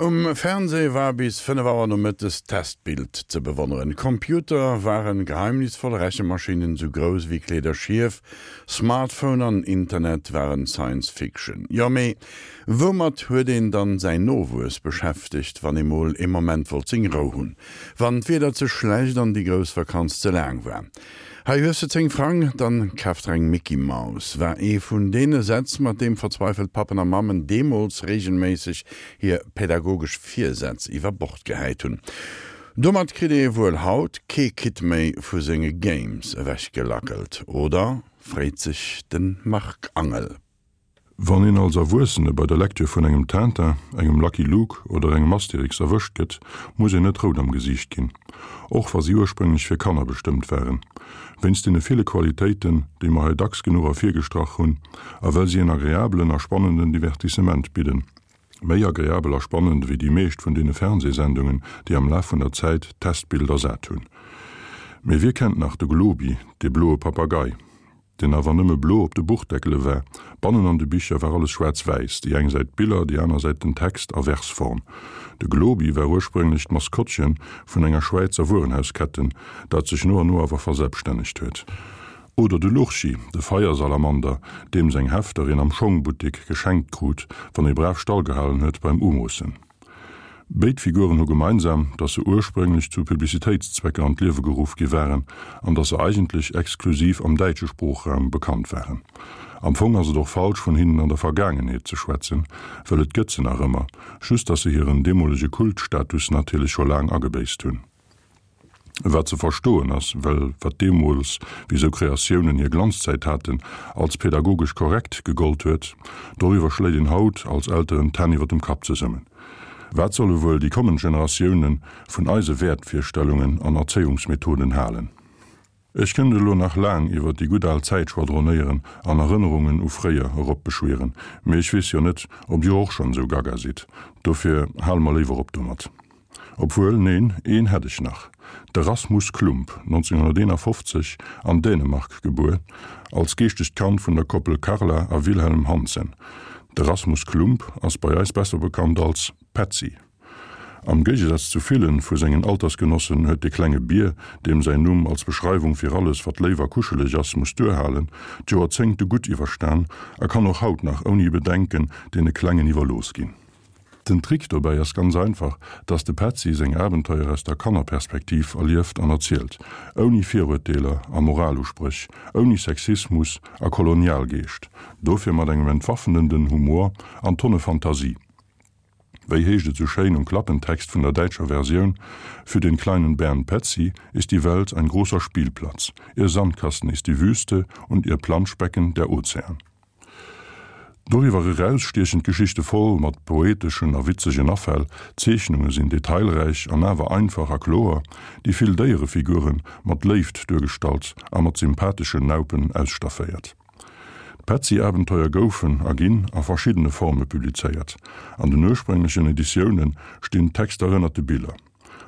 Um Fernseh war bis 5 Auer nomëttes d'Testbild ze bewonneren. Computer waren geheimnisvoll Rechemaschinen sou grouss wéi Kleederschief, Smartphone an Internet waren Science Fiction. Jo mee woumat huet een dann säin Nowuess beschäftegt, wann ee mol ee Moment wollt seng Rou hunn? Wann d'Wieder ze schlecht an déi grouss Vakanz ze laang war? Hei hues de 10 Frang, dann kaf der eng Micky Maus, war ee vun deene Sätz, mat deem verzweifelt Pappen a Mammen deemools reegelméisseg hir pädagogesch Virsätz iwwer Bord gehäit hunn. Domat kritt ee wuel haut kee Kid méi vu senge Games ewechgelackelt, oder? freet sech de Marc Angel. Wann een als Erwuessene bei der Lektür vun engem Tintin, engem Lucky Luke oder engem Asterix erwëscht gëtt, muss een net rout am Gesiicht ginn. Och wa si ursprénglech fir Kanner bestëmmt waren. Wéinst deene ville Qualitéiten, déi mer hei dacks genuch ervirgestrach hunn, a well si en agreabelen a spannenden Divertissement bidden. Méi agreabel a spannend ewéi déi meescht vun deene Fernsehsendungen, déi am Laf vun der Zäit d'Testbild ersat hunn. Mee wie kennt nach de Globi, dee bloe Papagei? deen awer nëmme blo op de Buchdeckele war. Bannen an de Bicher war alles schwaarz-wäiss, déi eng Säit d'Biller, déi aner Säit den Text a Versform. De Globi war ursprénglech d'Maskottche vun enger Schwäizer Wuerenhausketten, dat sech no an no awer verselbstännegt huet. Oder de Lurchi, de Feiersalamander, deem seng Hefter een am Schongbuttek geschenkt krut, wann ee brav stallgehalen huet beim Umoossen. Béid Figuren hu gemeinsam, datt se ursprénglech zu Publicitéitszwecker an d'Liewe geruff gi waren an datt se eigentlech exklusiv am däitsche Sproochraum bekannt waren. Am Fong ass et och falsch, vun hinnen an der Vergaangenheet ze schwätzen, well et gëtt se nach ëmmer, just datt se hiren deemolege Kultstatus natierlech scho laang agebéisst hunn. Wat ze verstoen ass, well wat deemools, wéi sou Kreatiounen hir Glanzzäit haten, als pädagogesch korrekt gegollt huet, doriwwer schléit een haut als Elteren d'Hänn iwwer dem Kapp zesummen. Wat solle wuel déi kommend Generatioune vun eise Wäertvirstellungen an Erzéiungsmethoden halen? Ech kënnt elo nach laang iwwer déi gutt al Zäit schwadronéieren an Erënnerungen u fréier eropbeschwieren, mee ech weess jo net, ob dir och schonn esou gaga sidd, dofir hale mer léiwer op domat. Obwuel, neen, een hätt ech nach, de Rasmus Klump, 1951 an Dänemark gebuer, als geeschtegt Kand vun der Koppel Karla a Wilhelm Hansen. De Rasmus Klump ass bei eis besser bekannt als Petzi. Am Géigesaz zu villen vu sengen Altersgenossen huet de klenge Bier, deem säin Numm als Beschreiwung fir alles wat léif a kuscheleg ass muss duerhalen, d'Joerzéngte gutt iwwerstan a kann och haut nach ouni Bedenken deene Klengen iwwerlooss ginn. Den Trick dobäi ass ganz einfach, dass de Petzi seng Abenteuer aus der Kannerperspektiv erlieft an erzielt, ouni Viruerteeler a Moraluspréch, ouni Sexismus a Kolonialgeescht, dofir mat engem entwaffnenden Humor an Tonne Fantasie. Wéi heescht et sou schéin um Klappentext vun der däitscher Versioun, Für den kleinen Bären Petzi ist die Welt ein großer Spielplatz, ihr Sandkasten ist die Wüste und ihr Planschbecken der Ozean. Doriwwer eraus stiechen d'Geschichte voll mat poeteschen a witzegen Afäll, d'Zeechnunge sinn detailräich an awer einfach a kloer, déi vill Déierefigure mat Léift duergestallt a mat sympatheschen Naupen ausstafféiert. D'Petzi-Abenteuer goufen a ginn a verschiddene Forme publizéiert. An den ursprénglechen Editioune stinn d'Texter ënnert de Biller.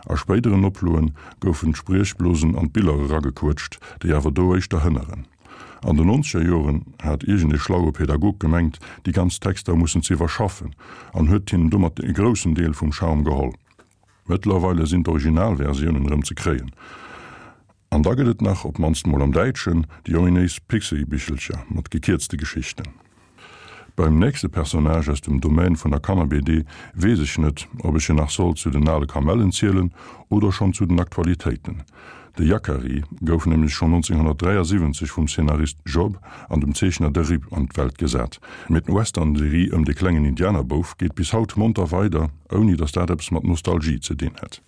A spéideren Oploen goufen d'Spriechblosen an d'Biller eragequëtscht, déi awer do éischter hënneren. An den nonzeger Joren hat iergend ee schlaue Pädagog gemengt, déi ganz Texter mussen ze iwwerschaffen an huet hinnen domat e groussen Deel vum Charme geholl. Mëttlerweile sinn d'Originalversiounen erëm ze kréien. An da gëtt et nach, op d'mannst mol am Däitschen, déi ominéis Pixi-Bichelcher mat gekierzte Geschichten. Beim nächste Personnage aus dem Domaine vun der Kanner-BD weess ech net, ob ech en nach soll zu den ale Kamellen zielen oder schonn zu den Aktualitéiten. De Yakari gouf nämlech schonn 1973 vum Szenarist Job an dem Zeechner Derib an d'Welt gesat. Mee d'Western-Serie ëm de klengen Indianerbouf geet bis haut monter weider, ouni datt dat eppes mat Nostalgie ze dinn hätt.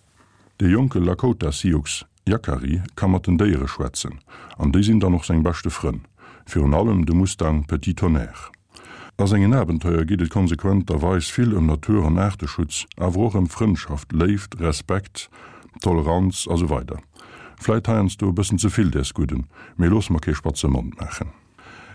De jonke Lakota-Sioux Yakari ka mat den Déiere schwätzen, an déi sinn dann och seng beschte Frënn, virun allem de Mustang Petit Tonnerre. A sengen Abenteuer geet et konsequenterweis vill ëm Natur an Aarteschutz, awer och ëm Frëndschaft, Léift, Respekt, Toleranz a sou weider. Vläit heiansdo e bëssen ze vill däers Gudden, mee loosse mer kee spatze Mond maachen.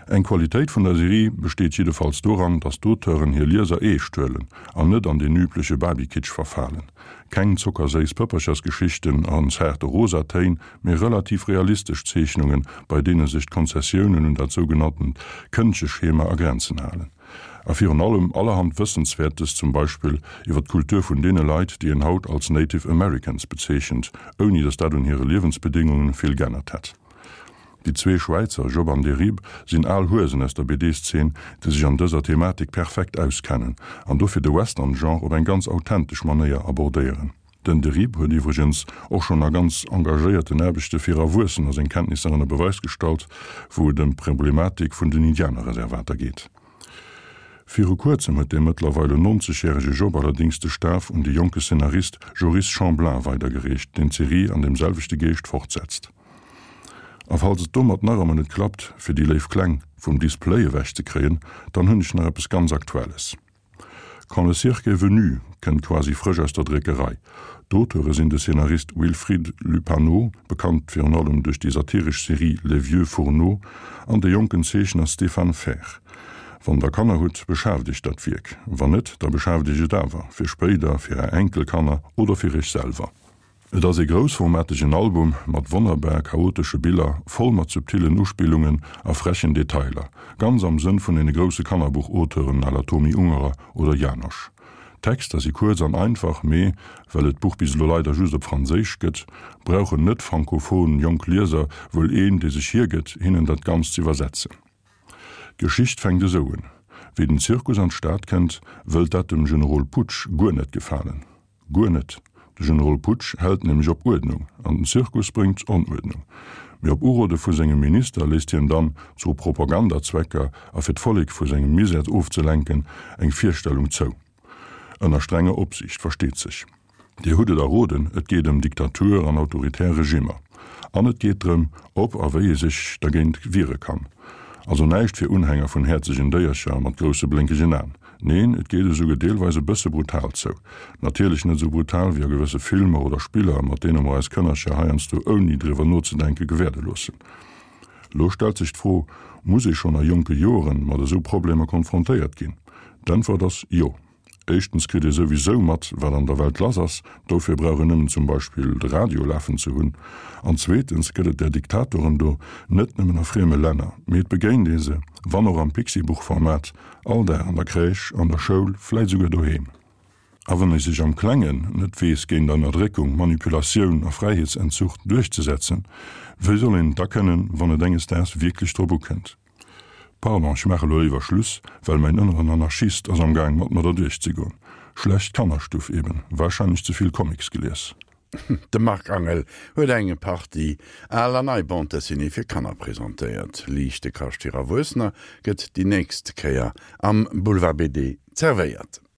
Eng Qualitéit vun der Serie besteet jiddefalls doran, datt d'Auteuren hir Lieser eescht huelen an net an deen übleche Barbie-Kitsch verfalen. Keng zockerséiss Pëpperchersgeschichten an zaarte rosa Téin, mee relativ realistesch Zeechnungen, bei deene sech d'Konzessiounen un dat sougenanntent Këndcheschema a Grenzen halen. A virun allem allerhand Wëssenswäertes, zum Beispill iwwer d'Kultur vun deene Leit, déi een haut als Native Americans bezeechent, ouni datt dat un hire Liewensbedéngungen vill g'ännert hätt. Déi zwee Schwäizer, Job an Derib, sinn al Huesen aus der BD-Szene, déi sech an dëser Thematik perfekt auskennen an dofir de Western-Genre op eng ganz authentesch Manéier abordéieren. Den Derib huet iwwregens och schonn a ganz engagéierten Aarbechte fir Erwuessener seng Kenntnisser ënner Beweis gestallt, wou et ëm d'Problematik vun den Indianerreservater geet. Viru kuerzem huet dee mëttlerweile 90 järege Job allerdéngs de Staf un de jonke Szenarist Joris Chamblain weidergereecht, deen d'Serie an deem selwechte Geescht fortsetzt. A falls et domat nach ëmmer net klappt, fir déi léif Kleng vum Display ewech ze kréien, dann hunn ech nach eppes ganz Aktuelles. Quand le cirque est venu kënnt quasi frësch aus der Dréckerei. D'Auteure sinn de Szenarist Wilfrid Lupano, bekannt virun allem duerch déi satiresch Serie Les vieux fourneaux, an de jonken Zeechner Stéphane Fer. Wann der Kanner hutt, beschaaft iech dat Wierk. Wann net, da beschaaft iech et awer, fir spéider, fir är Enkelkanner oder fir iech selwer. Et ass ee groussformategen Album mat wonnerbar chaotesche Biller, voll mat subtillen Uspillungen a frechen Detailer, ganz am Sënn vun deene grousse Kannerbuch-Auteuren à la Tomi Ungerer oder Janosch. D'Texter si kuerz an einfach, mee, well et d'Buch bis elo leider just op Franséisch gëtt, brauchen net-frankophon jonk Lieser wuel een, dee sech hiergëtt, hinnen dat Ganzt z'iwwersetzen. D'Geschicht fänkt esou un, Wéi den Zirkus an d'Stad kënnt, wëllt dat dem Generol Putsch guer net gefalen. Guer net. De Generol Putsch hält nämlech op Uerdnung, an den Zirkus bréngt Onuerdnung. Mee op Urode vu sengem Minister léisst hien dann, zu Propagandazwecker a fir d'Vollek vu sengem Misär ofzelenken, eng Virstellung zou. Ënner strenger Opsiicht, versteet sech. Dir hutt et erroden, et geet ëm Diktatur an autoritär Regimmer. An et geet drëm, ob a wéi ee sech dergéint wiere kann. Also näischt fir Unhänger vun häerzegen Déiercher mat grousse blénkegen Aen. Neen, et geet esouguer deelweis e bësse brutal zou. Natierlech net esou brutal wéi a gewësse Filmer oder Spiller, mat deene mer eis Kënnercher heiansdo ouni driwwer nozedenke gewäerde loossen. Lo stellt sech d'Fro, Muss ee schonn a jonke Joren mat esou Problemer konfrontéiert ginn? D'Äntwert ass jo. Éischtens kritt ee souwisou mat, wat an der Welt lass ass, dofir brauch een nëmmen zum Beispill de Radio lafen ze hunn. An zweetens gëtt et där Diktatoren do net nëmmen a frieme Länner, mee et begéint ee se, wann och am Pixi-Buch-Format, all Dag an der Crèche, an der Schoul, vläit esouguer doheem. A wann ee sech am Klengen net weess géint Ënnerdréckung, Manipulatioun a Fräiheetsentzuch duerchzesetzen, wéi soll een et da kënnen, wann et enges Daags wierklech drop ukënnt? Pardon, ech maache lo léiwer Schluss, well mäin ënneren Anarchist ass am Gaang mat mer derduerch ze goen. Schlecht Kannerstuff eben, wahrscheinlech ze vill Comics gelies. De Marc Angel huet eng Partie al an nei Bande Dessinée fir Kanner presentéiert. Liichte Kascht fir Erwuessener gëtt déi nächst Kéier am Boulevard BD zerwéiert.